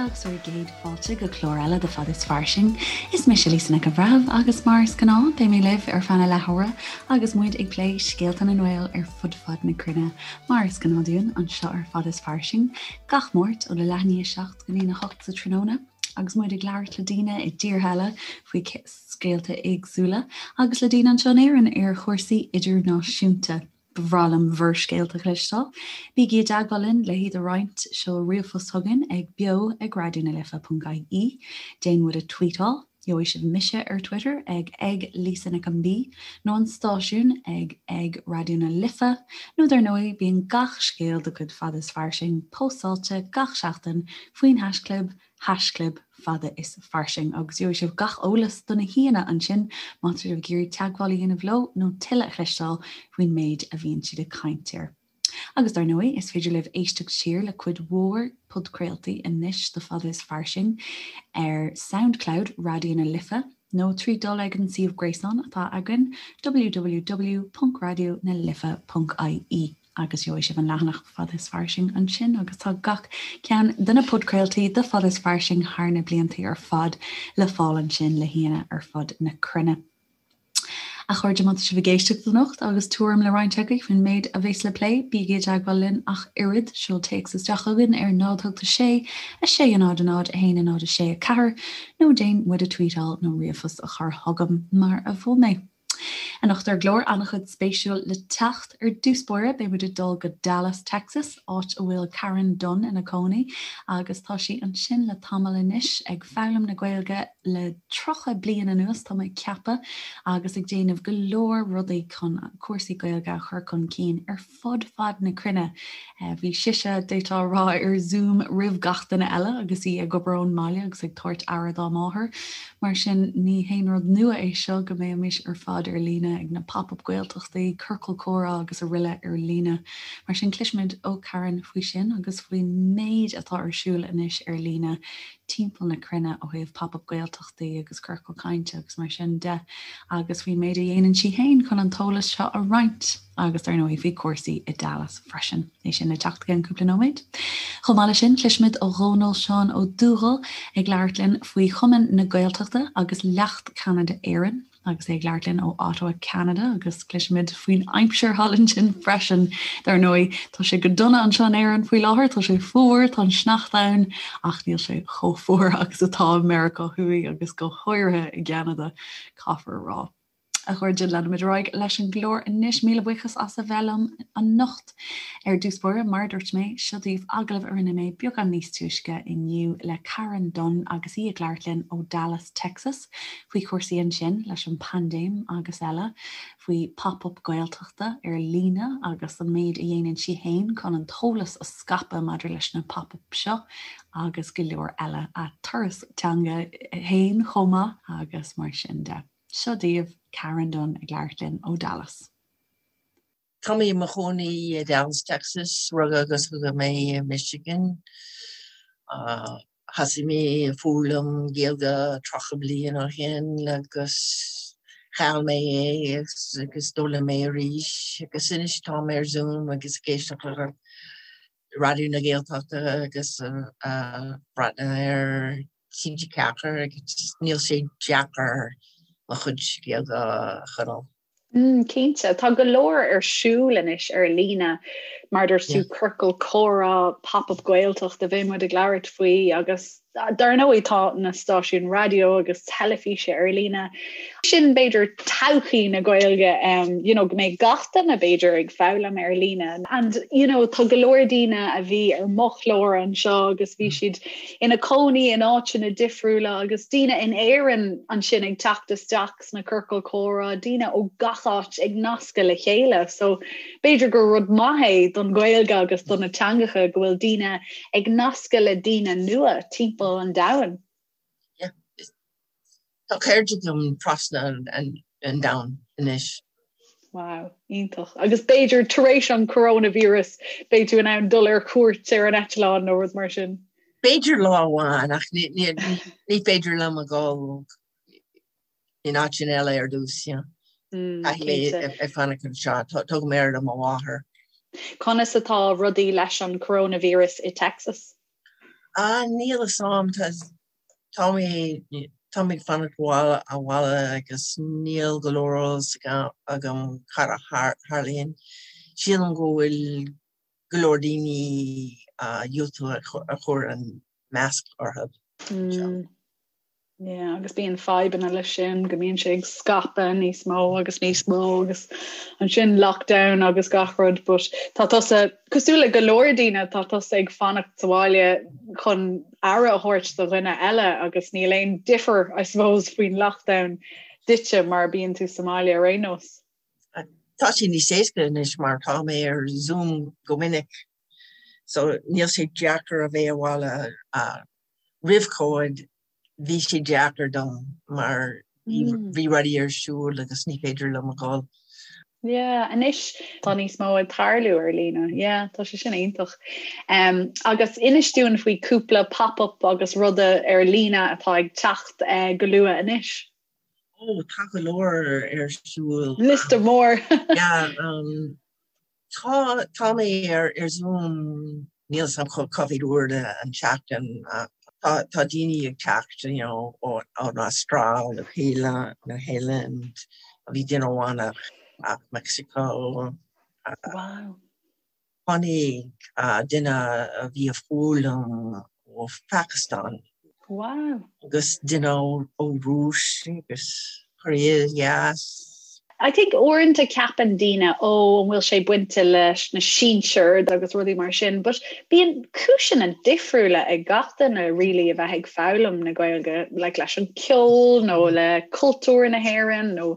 agus bhur gcéad fáilte go clár eile de Fada is Fairsing. Is mise Lisa Nic an Bhreithimh agus mar is gnáth beidh mé libh ar feadh na leathuaire agus muid ag plé scéalta na nGael ar fud fad na cruinne mar is gnáth dúinn anseo ar Fada is Fairsing gach Máirt óna leath i ndiaidh a 7 go dtí a 8 sa tráthnóna agus muid ag labhairt le daoine i dtíortha eile faoi scéalta éagsúla agus le daoine anseo in Éirinn ar chúrsaí idirnáisiúnta. Ba bhreá liom bhur scéalta a chloisteáil. Bígí i dteagmháil linn le hiad a roinnt, seol ríomhphost chugainn ag beo ag raidionalife.ie, déan muid a tweetáil, gheobhaidh sibh mise ar Twitter ag ag Lisa Nic an B nó an stáisiún ag ag Raidió na Life nó dar ndóigh bíonn gach scéal de chuid Fada is Fairsing póstáilte gach seachtain faoin haischlib haischlib fada is fairsing agus gheobhaidh sibh gach eolas do na haíonna ansin má tá sibh ag iarraidh teagmháil a dhéanamh leo nó tuilleadh a chloisteáil faoin méid a bhíonn siad ag caint air. Agus dar ndóigh, is féidir libh éisteacht siar le cuid mhór podchraoltaí anois de Fada is Fairsing ar Soundcloud Raidió na Life nó trí dul ag an suíomh gréasáin atá againn www.raidionalife.ie. agus gheobhaidh sibh an leathanach Fada is Fairsing ansin agus tá gach ceann de na podchraoltaí de Fada is Fairsing thar na blianta ar fad le fáil ansin le haíonna ar fud na cruinne. A chairde, má tá sibh ag éisteacht anocht agus tuairim le roinnt agaibh faoin méid a bheas le plé, bígí i dteagmháil linn ach oiread, seol téacs isteach chugainn ar 0 8 6 6 0 0 1 0 6 4 nó déan muid a tweetáil nó ríomhphost a chur chugam mar a mhol mé. Anocht ar an gclár, an-chuid spéisiúil le teacht. Ar dtús báire, beidh muid ag dul go Dallas, Texas, áit a bhfuil Karen Dunne ina cónaí agus tá sí ansin le tamall anois ag foghlaim na Gaeilge le 30 bliain anuas, tá mé ag ceapadh, agus ag déanamh go leor rudaí chun cúrsaí Gaeilge a chur chun cinn ar fud fad na cruinne. Bhí sise, d'fhéadfá a rá, ar Zoom roimh gach duine eile agus í ag obair ón mbaile agus ag tabhairt aire dá máthair. Mar sin, ní haon rud nua é seo go mbeimis ar fad ar líne ag na Pop-Up Gaeltachtaí, Ciorcal Comhrá agus araile ar líne. Mar sin, cloisfimid ó Karen faoi sin agus faoin méid atá ar siúl anois ar líne timpeall na cruinne ó thaobh Pop-Up Gaeltachtaí agus Ciorcal Cainte agus mar sin de agus faoin méid a dhéanann sí féin chun an t-eolas seo a roinnt agus dar ndóigh faoi chúrsaí i Dallas freisin. É sin le teacht i gceann cúpla nóiméad. Chomh maith leis sin, cloisfimid ó Dhónal Seán Ó Dúghaill ag labhairt linn faoi Chumann na Gaeltachta agus Leacht Ceanada Éireann. agus é ag labhairt linn ó Ottawa, Ceanada, agus cloisfimid faoin aimsir thall ansin freisin. Dar ndóigh, tá sé go dona anseo in Éirinn faoi láthair, tá sé fuar, tá an sneachta ann, ach níl sé chomh fuar agus atá i Meiriceá Thuaidh agus go háirithe i gCeanada, caithfear a rá. A chairde, leanfaimid ar aghaidh leis an gclár anois. Míle buíochas as a bheith liom anocht. Ar dtús báire, mar a dúirt mé, seo daoibh agallamh a rinne mé beagán níos túisce inniu le Karen Dunne agus í ag labhairt linn ó Dallas, Texas, faoi chúrsaí ansin leis an bpaindéim agus eile, faoi Pop-Up Gaeltachta ar líne agus an méid a dhéanann sí féin chun an t-eolas a scaipeadh maidir leis na pop-up seo agus go leor eile, a turas teanga féin chomh maith agus mar sin de. Seo daoibh Karen Dunne ag labhairt linn ó Dallas. Tá mé i mo chónaí i Dallas, Texas. Rugadh agus tógadh mé i Michigan. Thosaigh mé ag foghlaim Gaeilge 30 bliain ó shin agus chaill mé é agus d'fhoghlaim mé arís agus anois tá mé ar Zoom agus ag éisteacht le Raidió na Gaeltachta agus ag breathnú ar TG4 agus níl sé deacair mo chuid Gaeilge a choinneáil. Cinnte. Tá go leor ar siúl anois ar líne, mar a dúirt tú, ciorcal comhrá, Pop-Up Gaeltacht a bheidh muid ag labhairt faoi agus dar ndóigh tá na stáisiúin raidió agus teilifíse ar líne. Sin b'fhéidir todhchaí na Gaeilge, you know, go mbeidh gach duine b'fhéidir ag foghlaim ar líne. And you know, tá go leor daoine a bhí ar mo chlár anseo agus bhí siad ina cónaí in áiteanna difriúla agus daoine in Éirinn ansin ag teacht isteach sna ciorcail comhrá, daoine ó gach áit ag nascadh le chéile. So b'fhéidir gur rud maith é don Ghaeilge agus do na teangacha go bhfuil daoine ag nascadh le daoine nua timpeall an domhain. Yeah. Tá cairde agam trasna an domhain anois. Wow, iontach. Agus b'fhéidir tar éis an coronavirus beidh tú in ann dul ar cuairt ar an eitleán nó rud mar sin. B'fhéidir lá amháin ach ní féidir liom a dhul in áiteanna eile ar dtús. Caithfidh mé ag fanacht anseo, tógaim aire do mo mháthair. Conas atá rudaí leis an coronavirus i Texas? Ah, níl a fhios a'm, tá mé tá mé ag fanacht abhaile agus níl go leor eolas agam cad a tharlaíonn. Sílim go bhfuil go leor daoine diúltú a chur an masc orthu. Mm. Yeah, agus bíonn fadhbanna leis sin go mbíonn sé ag scaipeadh níos mó agus níos mó agus ansin lockdown agus gach rud, but tá tusa cosúil le go leor daoine tá tusa ag fanacht sa bhaile chun aire a thabhairt do dhuine eile agus níl aon difear I suppose faoin lockdown duitse mar bíonn tú sa mbaile ar aon nós. Tá sé níos éasca anois mar tá mé ar Zoom go minic so níl sé deacair a bheith abhaile roimh Covid bhí sé deacair dom mar bhí rudaí ar siúl agus ní féidir liom a dhul. Yeah, anois tá níos mó ag tarlú ar líne. Yeah, tá sé sin iontach. Um, agus inis dúinn faoi cúpla pop-up agus ruda ar líne atá ag teacht uh, go luath anois. Ó, tá go leor ar siúl. Liosta mór. Yeah, um, Tá, tá mé ar ar Zoom, níl 'fhios a'm cá mhéad uair an tseachtain. Tá, tá daoine ag teacht, you know, ó, ón Astráil, Nua Shéalainn, Nua Shéalainn, bhí duine amháin as Mexico. Wow. Tháinig duine a bhí ag foghlaim ó Phakistan. Wow. Agus duine ó Rúis agus Korea Theas. I think uaireanta ceapann daoine ó an bhfuil sé bainte leis na sinsir agus rudaí mar sin, but bíonn cúiseanna difriúla ag gach duine really a bheith ag foghlaim na Gaeilge, like leis an ceol nó le cultúr na hÉireann nó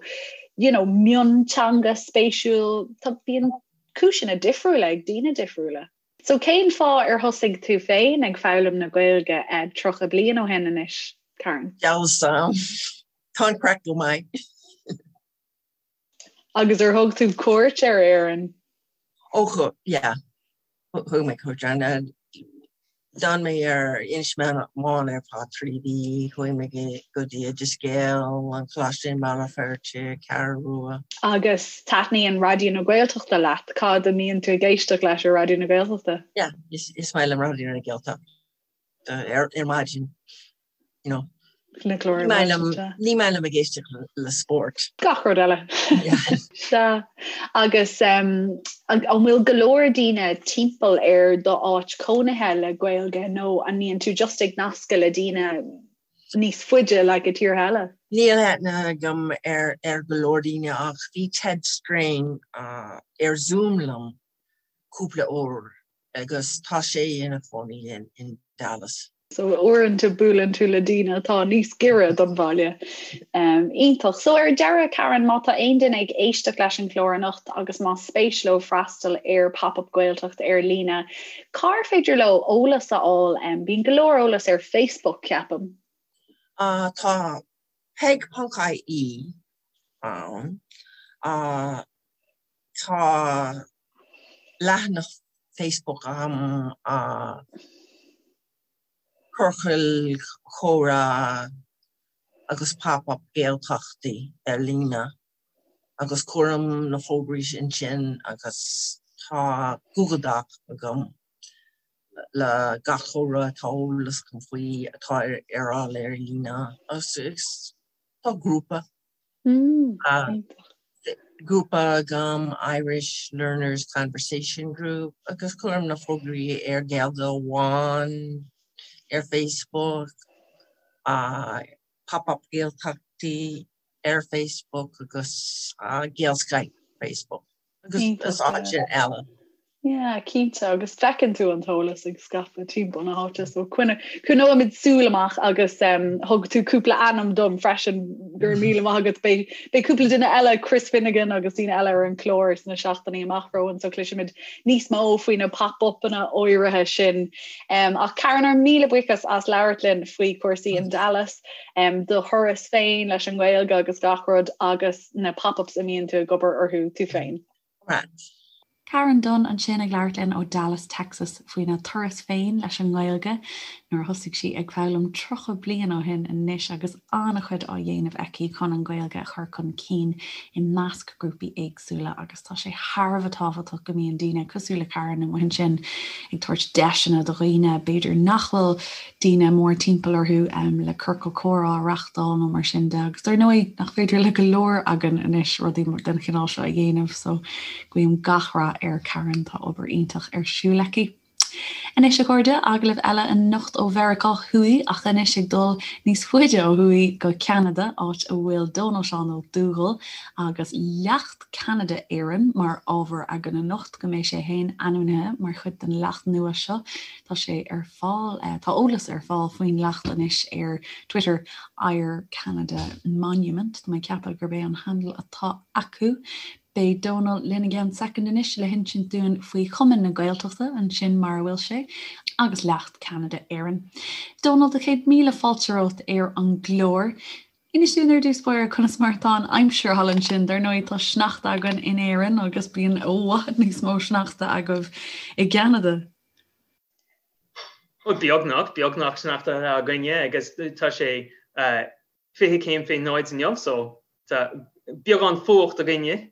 you know mionteanga spéisiúil, tá bíonn cúiseanna difriúla ag daoine difriúla. So cén fáth ar thosaigh tú féin ag foghlaim na Gaeilge 30 bliain ó shin anois, Karen? Dealbh sam. Tá an craic go maith. Agus ar thug tú cuairt ar Éirinn? Ó thug, yeah. Thug mé cuairt ar D'fhan mé ar Inis Meáin ar feadh 3 mhí, chuaigh mé go dtí Oideas Gael, an Coláiste i mBaile Feirste, Ceathrú Rua. Agus taitníonn Raidió na Gaeltachta leat, cad a mbíonn tú ag éisteacht leis ar Raidió na Gaeltachta? Yeah, is maith liom Raidió na Gaeltachta ar maidin. You know. Na cláir Ní maith liom ní maith liom ag éisteacht le spórt. Gach rud eile. Sea. Agus um, an bhfuil go leor daoine timpeall ar do áit cónaithe le Gaeilge nó an mbíonn tú just ag nascadh le daoine níos faide like i tíortha eile? Níl aithne agam ar ar go leor daoine ach bhí Ted Strain uh, ar Zoom liom cúpla uair agus tá sé ina chónaí in Dallas. So uaireanta buaileann tú le daoine atá níos giorra don bhaile. Um, iontach. So ar deireadh Karen, má tá aon duine ag éisteacht leis an chlár anocht agus má spéis leo freastal ar Pop-up Gaeltacht ar líne, cár féidir leo eolas a fháil? Um, bíonn go leor eolas ar Facebook, ceapaim. Uh, tá peg.ie ann. Uh, tá leathanach Facebook agam Ciorcal Comhrá agus Pop-Up Gaeltachtaí ar líne agus cuirim na fógraí ansin agus tá Google Doc agam le gach comhrá atá eolas agam faoi atá ar fháil ar líne agus tá grúpa. Grúpa agam Irish Learners Conversation Group agus cuirim na fógraí ar Gaeilge Amháin ar Facebook, Pop-Up Gaeltachtaí ar Facebook agus Gaelskype Facebook. Agus áiteanna eile. Yeah, cinnte, agus feiceann tú an t-eolas ag scaipeadh timpeall na háite, so coinneoimid súil amach agus um, thug tú cúpla ainm dom freisin go raibh míle maith agat beidh beidh cúpla duine eile Chris Finnegan agus daoine eile ar an chlár sna seachtainí amach romhainn so cloisfimid níos mó faoi na pop-upanna áirithe sin. Um, ach Karen ár míle buíochas as labhairt linn faoi chúrsaí in Dallas, um, do thuras féin leis an nGaeilge agus gach rud agus na pop-ups a mbíonn tú ag obair orthu tú féin. Right. Karen Dunne ansin ag labhairt linn ó Dallas, Texas faoina turas féin leis an nGaeilge. nuair a thosaigh sí ag foghlaim 30 bliain ó shin anois agus an-chuid á dhéanamh aici chun an Ghaeilge a chur chun cinn i measc grúpaí éagsúla agus tá sé thar a bheith tábhachtach go mbíonn daoine cosúil le Karen amuigh ansin ag tabhairt deiseanna do dhaoine b'fhéidir nach bhfuil daoine mór timpeall orthu le ciorcal comhrá a reachtáil nó mar sin de agus dar ndóigh nach féidir le go leor againn anois rudaí den chineál seo a dhéanamh so guím gach rath ar Karen, tá obair iontach ar siúl aici. Anois a chairde, agallamh eile anocht ó Mheiriceá Thuaidh ach anois ag dul níos faide ó thuaidh go Ceanada, áit a bhfuil Dónal Seán Ó Dúghaill agus Leacht Ceanada Éireann mar ábhar againn anocht, go mbeidh sé féin ainmnithe mar chuid den leacht nua seo. Tá sé ar fáil, tá eolas ar fáil faoin leacht anois ar Twitter, Eire Canada Monument, tá mé ag ceapadh gurb é an handle atá acu. Beidh Dónal linn i gceann soicind anois le hinsint dúinn faoi Chumann na Gaeltachta ansin mar a bhfuil sé, agus Leacht Ceanada Éireann. Dónal, do chéad míle fáilte romhat ar an gclár. Inis dúinn ar dtús báire conas mar atá an aimsir thall ansin. Dar ndóigh tá sneachta againn in Éirinn agus bíonn i bhfad níos mó sneachta agaibh i gCeanada. Beagnach, beagnach sneachta againne agus tá sé 20 céim fé náid inniu so tá beagán fuacht againne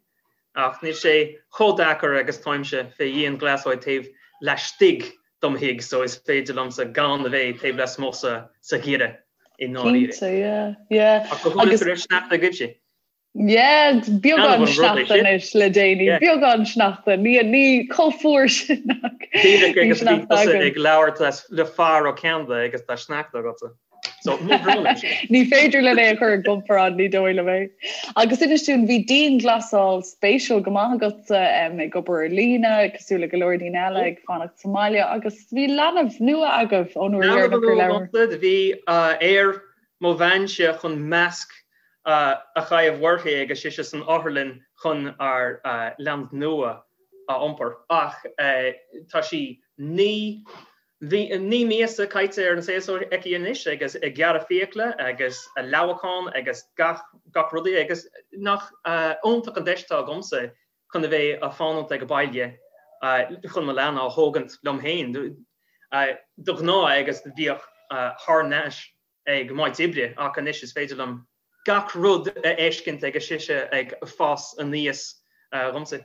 ach níl sé chomh deacair agus táimse fé dhianghlasáil taobh laistigh dom thigh so is féidir liomsa gan a bheith taobh lasmuigh sa sa gheimhreadh i ndáiríre. Cinnte, yeah, yeah. Ach go háirithe go raibh sneachta agaibhse. Yeah, beagán sneachta anois le déanaí, beagán sneachta, ní ní chomh fuar sin ach Díreach agus bhí tusa ag labhairt le fear ó Cheanada agus tá sneachta agatsa. So, mo bhrón é sin. Ní féidir linn é a chur i gcomparáid, ní dóigh liom é. Agus inis dúinn, bhí dianghlasáil spéisiúil go maith agatsa ag obair ar líne, cosúil le go leor daoine eile ag fanacht sa mbaile, agus bhí leanbh nua agaibh ón uair dheireanach ar labhair. Bhí ar mo bheanse chun masc a chaitheamh uirthi agus sise san otharlann chun ár leanbh nua a iompar. Ach tá sí 9 míosa caite ar an saol seo aici anois agus ag gearradh fiacla agus leamhachán agus gach gach rudaí agus nach iontach an deis atá agamsa chun a bheith a' fanacht ag baile chun mo leanbh a thógaint liom féin. De ghnáth agus bhíodh thar n-ais ag m'áit oibre ach anois is féidir liom gach rud a fheiscint agus sise ag fás aníos dhomsa.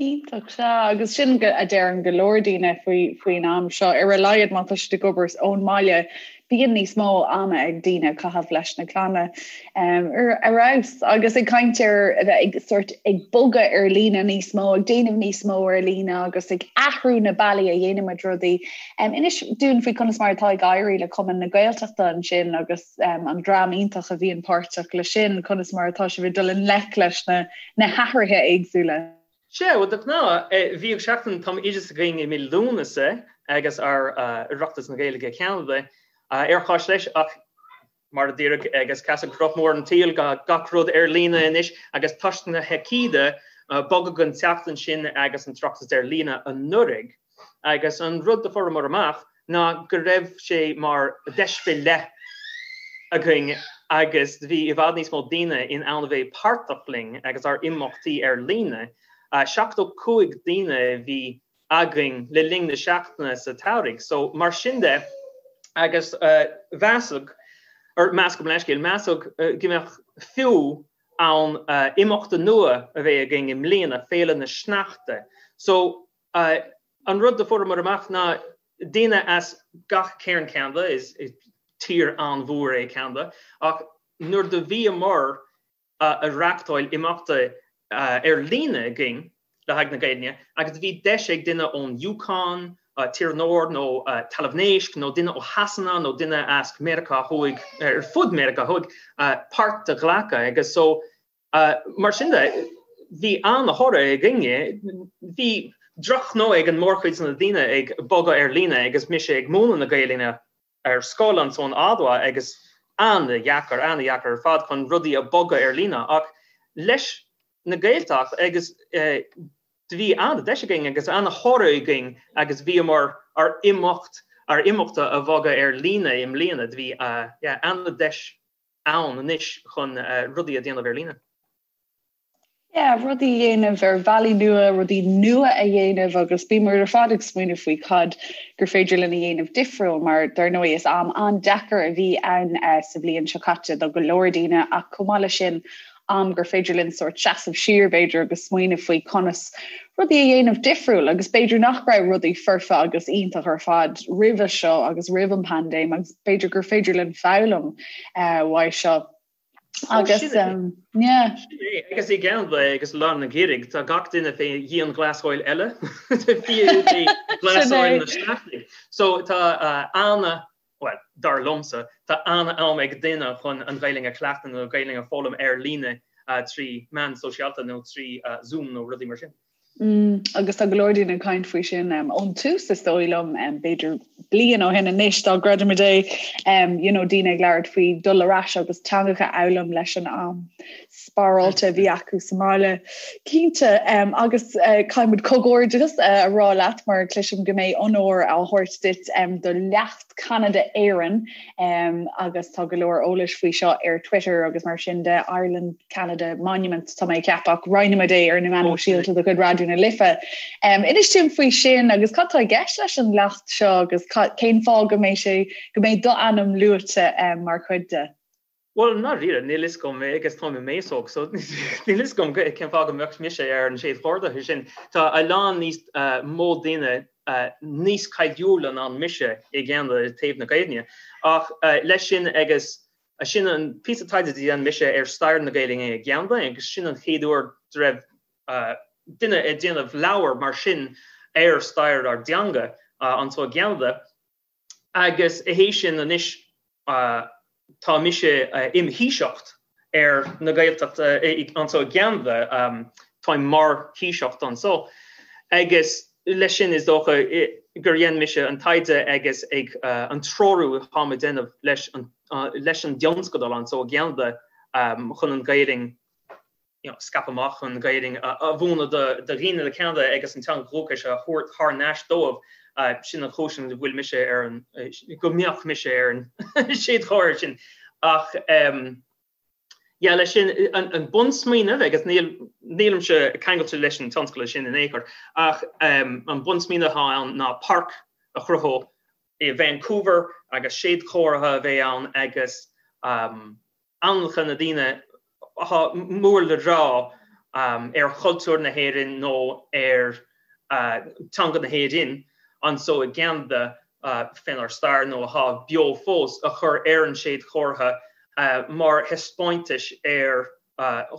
Iontach, sea, agus sin a deireann go leor daoine faoi faoin am seo, ar a laghad má tá siad ag obair ón mbaile, bíonn níos mó ama ag daoine a chaitheamh leis na clanna ar fheabhas. Agus ag caint ar a bheith ag sort ag bogadh ar líne níos mó, ag déanamh níos mó ar líne agus ag athrú na bealaí a dhéanaimid rudaí. Inis dúinn faoi conas mar atá ag éirí le Cumann na Gaeltachta ansin agus an dream iontach a bhíonn páirteach leis sin, conas mar atá sibh ag dul i ngleic leis na na hathruithe éagsúla. Sea, bhuel, de ghnáth, bhíodh seachtain tumoideachais againn i mí Lúnasa agus ár Oireachtas na Gaeilge Ceanada ar chois leis ach mar a déarfadh agus casadh roth mór an tsaoil gach rud ar líne anois agus toisc na haicíde bogadh an tseachtain sin agus an tOireachtas ar líne anuraidh agus an rud do fuaireamar amach ná go raibh sé mar deis fé leith againn agus bhí i bhfad níos mó daoine in ann a bheith páirteach linn agus ár imeachtaí ar líne. 75 daoine a bhí againn le linn na seachtaine sa tsamhraidh. So mar sin de agus mheasadh, or meas gabh mo leithscéal, measadh go mbeadh fiú ann imeachta nua a bheith againn i mbliana, Féile na Sneachta. So An rud do fuaireamar amach ná daoine as gach cearn Ceanada, is tír an-mhór é Ceanada, ach nuair do bhíomar a reachtáil imeachta ar líne againn le haghaidh na Gaeilge agus bhí deis ag duine ón Yukon, Tír an Iúir nó Talamh Naisc nó duine ó Shasana nó duine as Meiriceá Thuaidh, ar fud Meiriceá Thuaidh, páirt a ghlacadh agus so Mar sin de, bhí an-thoradh againne. Bhí drochghnó ag an mórchuid de na daoine ag bogadh ar líne agus mise ag múineadh na Gaelainne ar scoil anso in Ottawa agus an-dheacair, an-dheacair ar fad chun rudaí a bogadh ar líne ach leis na Gaeltacht agus do bhí an-deis againn agus an-thoradh againn agus bhíomar ár imeacht, ár imeachta a bhogadh ar líne i mbliana. Do bhí, yeah, an-deis ann anois chun rudaí a dhéanamh ar líne. Yeah, rudaí a dhéanamh ar bhealaí nua, rudaí nua a dhéanamh agus bíonn muid ar fad ag smaoineamh faoi cad gur féidir linn a dhéanamh difriúil mar dar ndóigh is am an-deacair a bhí ann sa bhliain seo caite do go leor daoine ach chomh maith leis sin am gur féidir linn sórt seasamh siar b'fhéidir agus smaoineamh faoi conas rudaí a dhéanamh difriúil agus b'fhéidir nach raibh rudaí foirfe agus iontach ar fad roimhe seo agus roimh an paindéim agus b'fhéidir gur féidir linn foghlaim uaidh seo. Agus yeah. Sin é, agus i gCeanada agus lár an gheimhridh, tá gach duine fé dhianghlasáil eile, dianghlasáil na sneachtaidh. So tá ana, bhuel, dar liomsa, tá ana-am ag duine chun an Ghaelainn a chleachtadh nó an Ghaelainn a foghlaim ar líne trí meán sóisialta nó trí Zoom nó rudaí mar sin. Agus tá go leor daoine ag caint faoi sin ón tús is dóigh liom, b'fhéidir bliain ó shin anois dá gcreidimid é, you know, daoine ag labhairt faoi dul ar ais agus teangacha a fhoghlaim leis an am spáráilte a bhí acu sa mbaile. Cinnte, agus caithfidh muid comhghairdeas a rá leat mar cloisim go mbeidh onóir á thabhairt duit do leacht Ceanada Éireann agus tá go leor eolais faoi seo ar Twitter agus mar sin de, Ireland Canada Monument tá mé ag ceapadh ach roinnfimid é ar na meáin shóisialta de chuid Raidió na Life. Inis dúinn faoi sin agus cad tá i gceist leis an leacht seo agus cén fáth go mbeidh sé go mbeidh d'ainm luaite mar chuid de? Bhuel, i ndáiríre, níl fhios agam agus táim i m'aos óg, so níl fhios agam cén fáth go mbeadh mise ar an séadchomhartha sin. Tá a lán níos mó daoine níos cáiliúla ná mise i gCeanada i dtaobh na Gaeilge. Ach leis sin agus sin an píosa taighde a dhein mise ar stair na Gaeilge i gCeanada agus sin an chéad uair go raibh duine ag déanamh leabhar mar sin ar stair ár dteanga anso i gCeanada. Agus théis sin anois tá mise im Thaoiseacht ar na Gaeltachta anso i gCeanada, táim mar Thaoiseacht anso. Agus leis sin is dócha gur dhein mise an taighde agus ag an treorú atáim ag déanamh leis an dtionscadal anso i gCeanada chun an Ghaelainn you know, scaipeadh amach an Ghaelainn a mhúineadh do dhaoine le Ceanada agus an teanga dhúchais a thabhairt thar n-ais dóibh, sin an chúis an bhfuil mise ar an, go mbeadh mise ar an séadchomhartha sin. Ach yeah, leis sin, an bunsmaoineamh, agus níl, nílimse ceangailte leis an tionscadal sin in aon chor, ach an bunsmaoineamh atá ann ná páirc a chruthú i Vancouver agus séadchomhartha a bheidh ann agus ainmneacha na daoine atá mór le rá ar chultúr na hÉireann nó ar teanga na hÉireann anso i gCeanada fénár stair nó atá beo fós a chur ar an séadchomhartha mar thaispeántais ar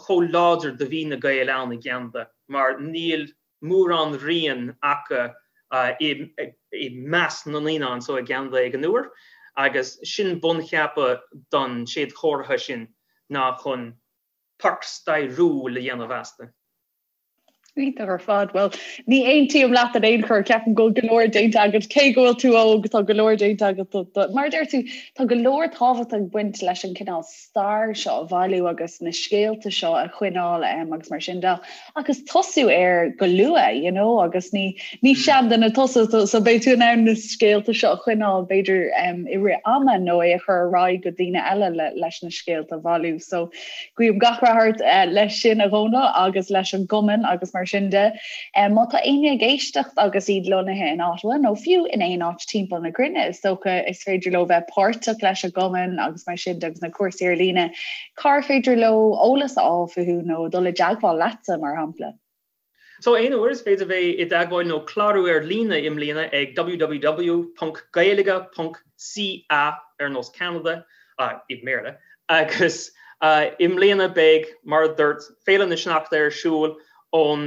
chomh láidir do bhí na Gaeil ann i gCeanada mar níl mórán rian acu i measc na ndaoine anso i gCeanada ag an uair agus sin buncheapadh don séadchomhartha sin ná chun páirc stairiúil a dhéanamh astu. Iontach ar fad. Bhuel, ní aontaím leat in aon chor, ceapaim go bhfuil go leor déanta agat, cé go bhfuil tú óg, tá go leor déanta agat. Mar a deir tú, tá go leor tábhacht ag baint leis an cineál stair seo a bhailiú agus na scéalta seo a choinneáil agus mar sin de agus tosú air go luath you know agus ní ní seanduine tusa so beidh tú in ann na scéalta seo a choinneáil b'fhéidir um, i rith ama nó é a chur ar aghaidh go daoine eile le, leis na scéalta a bhailiú so guím gach rath ort uh, leis sin a Dhónaill agus leis an gcumann agus mar sin de. Um, má tá éinne ag éisteacht agus iad lonnaithe in Ottawa nó fiú in aon áit timpeall na cruinne, is dócha is féidir leo bheith páirteach leis an gcumann agus mar sin de agus na cúrsaí ar líne, cár féidir leo eolas a fháil fúthu nó dul i dteagmháil leatsa, mar shampla? So aon uair is féidir bheith i dteagmháil nó clárú ar líne i mbliana ag www.gaeilge.ca ar nós Canada, i mBéarla, agus i mbliana beidh, mar a dúirt, Féile na Sneachta ar siúl ón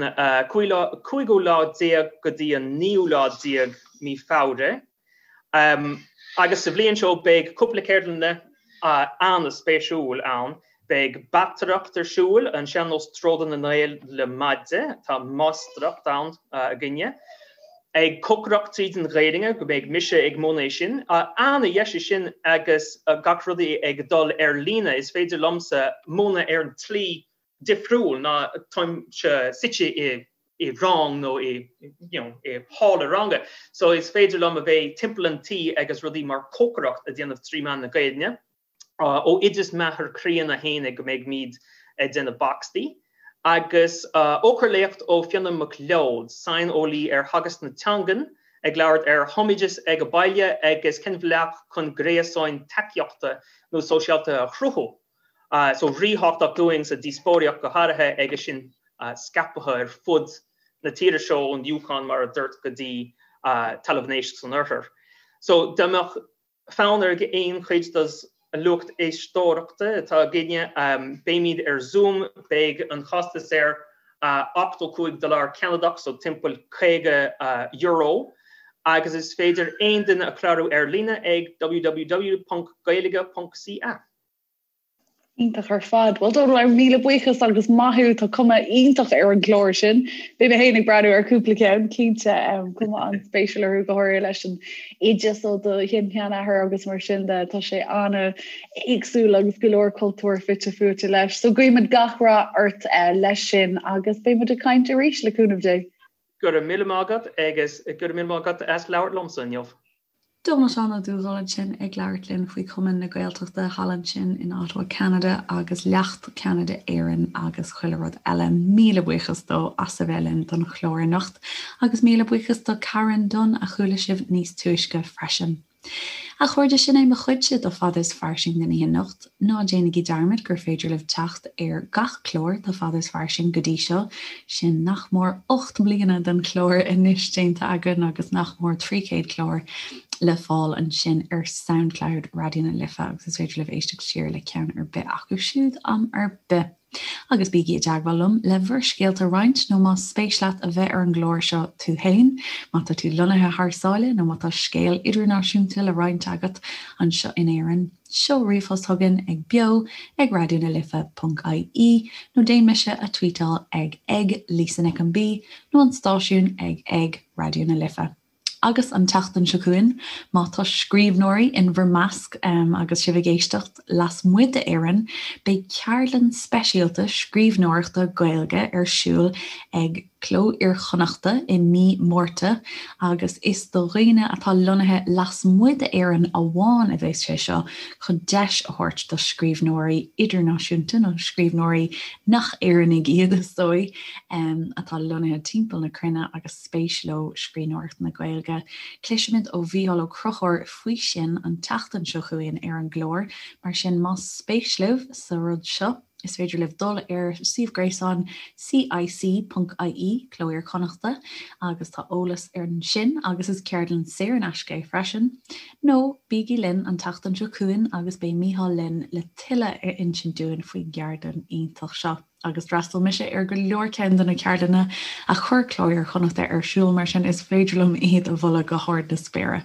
cúigiú lá déag go dtí an naoú lá déag mí Feabhra. Agus sa bhliain seo beidh cúpla ceardlanna an-spéisiúil ann. Beidh bataireacht ar siúl, an sean-nós Troda na nGael le maide, tá máistreacht ann againne. Ag cócaireacht tríd an Ghaeilge, go mbeidh mise ag múineadh é sin. An-dheis é sin agus gach rudaí ag dul ar líne, is féidir liomsa múineadh ar an tslí difriúil ná táimse suite i i rang nó i you know i halla ranga so is féidir liom a bheith timpeall an tí agus rudaí mar cócaireacht a déanamh trí mheán na Gaeilge. Ó oideas m'athair críonna fhéinig go mbeidh míd ag déanamh boxty. Agus eochairléacht ó Fiona MacLeod, saineolaí ar theagasc na teangan, ag labhairt ar thumoideas ag an baile agus cén bhealach chun gréasáin tacaíochta nó sóisialta a chruthú. So ríthábhachtach dúinn sa díospóireacht go háirithe agus sinn scaipthe ar fud na tíre seo ón Yukon mar a dúirt go dtí Talamh an Éisc san oirthear. So dá mbeadh fonn ar aon chuid dos an lucht éisteoireachta atá againne, beimid ar Zoom, beidh an costas air 85 dollar Ceanadach, so timpeall €50, agus is féidir aon duine a chlárú ar líne ag www.gaeilge.ca. Iontach ar fad. Bhuel Dónal, míle buíochas agus maith thú, tá cuma iontach ar an gclár sin. Beidh mé féin ag breathnú ar cúpla ceann, cinnte, cuma an-spéisiúil orthu go háirithe leis an oideas ó do shin-sheanathair agus mar sin de, tá sé an-éagsúil agus go leor cultúr fite fuaite leis. So guímid gach rath ort leis sin agus beidh muid ag caint arís le cúnamh Dé. Go raibh míle maith agat agus go raibh míle maith agat as labhairt liomsa inniu. Dónal Seán Ó Dubhghaill ansin ag labhairt linn faoi Chumann na Gaeltachta thall ansin in Ottawa, Ceanada agus Leacht Ceanada Éireann agus chuile rud eile. Míle buíochas dó as a bheith linn don chlár anocht agus míle buíochas do Karen Dunne a chuala sibh níos túisce freisin. A chairde, sin é mo chuidse de Fada is Fairsing don oíche anocht. Ná déanaigí dearmad gur féidir libh teacht ar gach clár de Fada is Fairsing go dtí seo, sin nach mór 8 mbliana den chlár anois déanta againn agus nach mór 300 clár le fáil ansin ar Soundcloud Raidió na Life agus is féidir libh éisteacht siar le ceann ar bith acu siúd am ar bith. Agus bígí i dteagmháil liom le bhur scéalta a roinnt nó más spéis leat a bheith ar an gclár seo tú fhéin, má tá tú lonnaithe thar sáile nó má tá scéal idirnáisiúnta le roinnt agat anseo in Éirinn, seol ríomhphost chugainn ag beo ag raidió na life ponc ie nó déan mise a tweetáil ag ag Lisa Nic an B nó an stáisiún ag ag Raidió na Life. Agus an tseachtain seo chugainn, má tá scríbhneoirí in bhur measc agus sibh ag éisteacht lasmuigh d'Éirinn, beidh ceardlann speisialta scríbhneoireachta Gaeilge ar siúl ag Cló Iar-Chonnachta i mí Márta agus is do dhaoine atá lonnaithe lasmuigh d'Éirinn amháin a bheas sé seo chun deis a thabhairt do scríbhneoirí idirnáisiúnta nó scríbhneoirí nach Éireannaigh iad is dóigh atá lonnaithe timpeall na cruinne agus spéis leo scríbhneoireacht na Gaeilge. Cloisfimid ó Mhícheál Ó Conchúir faoi sin an tseachtain seo chugainn ar an gclár, mar sin más spéis libh sa rud seo, is féidir libh dul ar suíomh gréasáin cic.ie, Cló Iar-Chonnachta, agus tá eolas ansin agus is ceardlann saor in aisce é freisin. Nó bígí linn an tseachtain seo chugainn agus beidh Mícheál linn le tuilleadh a insint dúinn faoin gceardlann iontach seo. agus d'fhreastail mise ar go leor ceann de na ceardlanna a chuir Cló Iar-Chonnachta ar siúl, mar sin is féidir liom iad a mholadh go hard na spéire.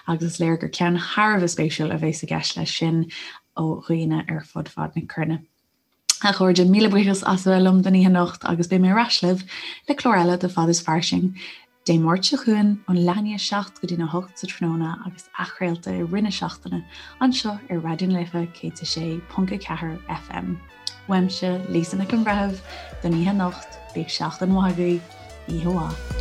Agus is léir gur ceann thar a bheith spéisiúil a bheas i gceist leis sin ó dhaoine ar fud fad na cruinne. A chairde, míle buíochas as a bheith liom don oíche anocht agus beidh mé ar ais libh le clár eile de Fad is Fairsing Dé Máirt seo chugainn ón leath i ndiaidh 7 go dtí'n 8 sa tráthnóna agus athchraolta i rith na seachtaine anseo ar Raidió na Life 106.4 FM. Uaimse, Lisa Nic an Bhreithimh, don oíche anocht, bíodh seachtain mhaith agaibh, oíche mhaith.